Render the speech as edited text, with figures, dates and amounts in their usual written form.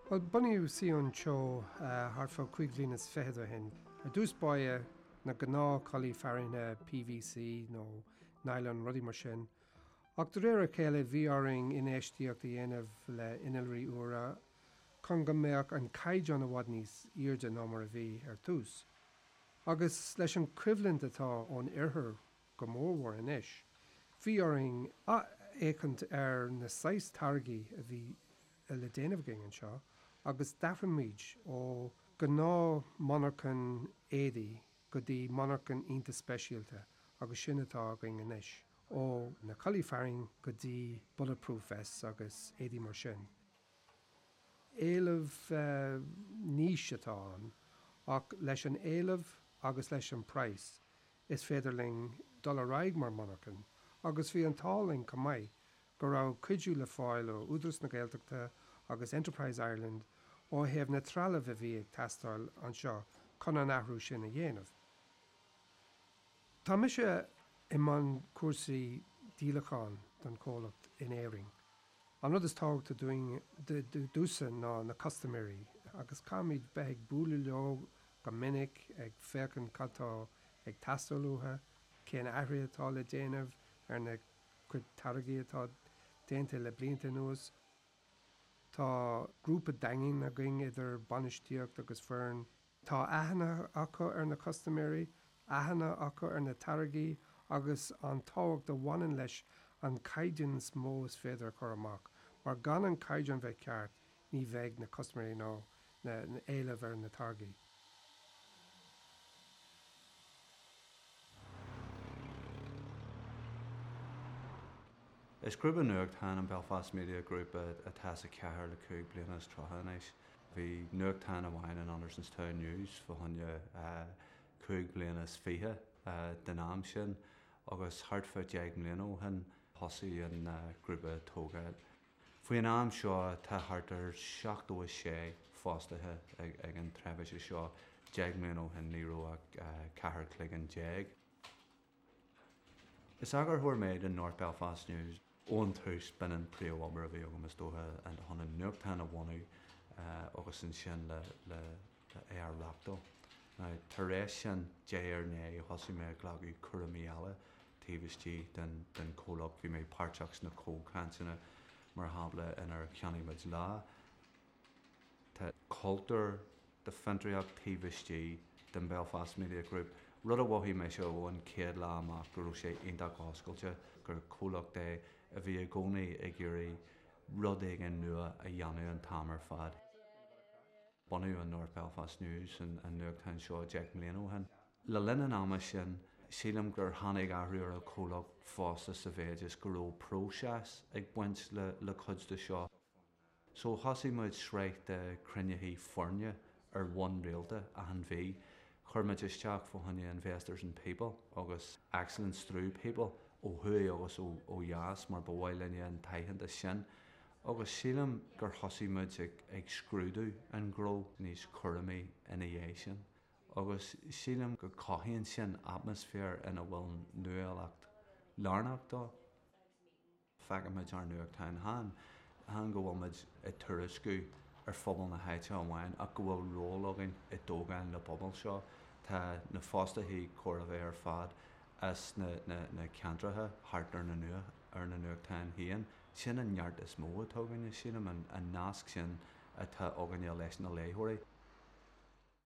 Bhuel, bunaíodh Sion Teo thart fá chúig bhliain is fichead ó shin. Ar dtús báire, na gnáth culaith fearthainne PVC nó nylon, rudaí mar sin. Ach de réir a chéile bhí orainn infheistíocht a dhéanamh le innealraí úra chun go mbeadh an caighdeán i bhfad níos airde ná mar a bhí ar tús. Agus leis an choimhlint atá ón oirthear go mórmhór anois, bhí orainn athfhéachaint ar na saghas táirgí a bhí le déanamh againn anseo agus d'athraigh muid ó ghnáth monarchan éadaí go dtí monarchan iontach speisialta agus sin atá againn anois. Ó na culaith fearthainne go dtí bulletproof vests agus éadaí mar sin. Éileamh niche atá ann ach leis an éileamh agus leis an praghas is féidir linn dul ar aghaidh mar monarchan agus bhí an t-ádh linn chomh maith go raibh cuidiú le fáil ó Údarás na Gaeltachta agus Enterprise Ireland ó thaobh na trealamh a bhí ag teastáil anseo chun an athrú sin a dhéanamh. Tá mise i mbun cúrsaí díolacháin don chomhlacht in Éirinn. An rud is tábhachtaí dúinn, domhsa ná na custaiméirí agus caithfimid bheith ag bualadh leo go minic, ag féachaint cad tá ag teastáil uathu, cén athruithe atá le déanamh ar na cuid táirgí atá déanta le blianta anuas. Tá grúpa daingean againn idir bainistíocht agus foireann. Tá aithne acu ar na custaiméirí, aithne acu ar na táirgí agus an tábhacht a bhaineann leis an caighdeán is mó is féidir a chur amach, mar gan an caighdeán bheith ceart ní bheidh na custaiméirí nó na éileamh ar na táirgí. Is grúpa nuachtáin an Belfast Media Group atá sa chathair le 35 bliana anois. Bhí nuachtán amháin, an Andersonstown News, fá choinne chúig bliana is fiche den am sin agus thart fá dheich mbliana ó shin thosaigh an grúpa ag tógáil. Faoin am seo tá thart ar 76 fostaithe ag an tseirbhís seo, deich mbliana ó shin ní raibh ach ceathair cloigeann déag. Is eagarthóir mé den North Belfast News. Ón tús, b'in an príomhobair a bhí agam is dócha, chun an nuachtán a bhunú agus ansin le é a reachtáil. Now, tar éis sin, diaidh ar ndiaidh, thosaigh mé ag glacadh cúraimí eile taobh istigh den chomhlacht. Bhí mé páirteach sna comhchainteanna, mar shampla, inar cheannaigh muid Lá. Tá cultúr de fiontraíocht taobh istigh den Belfast Media Group, rud a mhothaigh mise ó an chéad lá amach go raibh sé iontach oscailte, gur comhlacht é a bhí i gcónaí ag iarraidh rud éigin nua a dhéanamh an t-am ar fad. Bunaíodh an North Belfast News, an nuachtán seo, 10 mbliana ó shin. Le linn an ama sin, sílim gur tháinig athrú ar an chomhlacht fosta sa mhéid is go raibh próiseas ag baint le cuid de seo. So thosaigh muid sraith de chruinnithe foirne ar bhonn rialta achan mhí. Chuir muid isteach fá choinne Investors in People agus Excellence Through People ó thuaidh agus ó dheas mar ba mhaith linne an t-aitheantas sin. Agus sílim gur thosaigh muid ag scrúdú an ghnó níos cúramaí ina dhiaidh sin. Agus sílim go cothaíonn sin atmaisféar ina bhfuil nuálacht lárnach dó. Feicimid ár nuachtáin chan go bhfuil muid ag tuairisciú ar phobal na háite amháin ach go bhfuil ról againn i dtógáil na bpobal seo. Tá na fostaithe chóir a bheith ar fad as na ceantracha thart ar na ar na nuachtáin féin. Sin an neart is mó atá againne, sílim, an nasc sin atá againne leis na léitheoirí.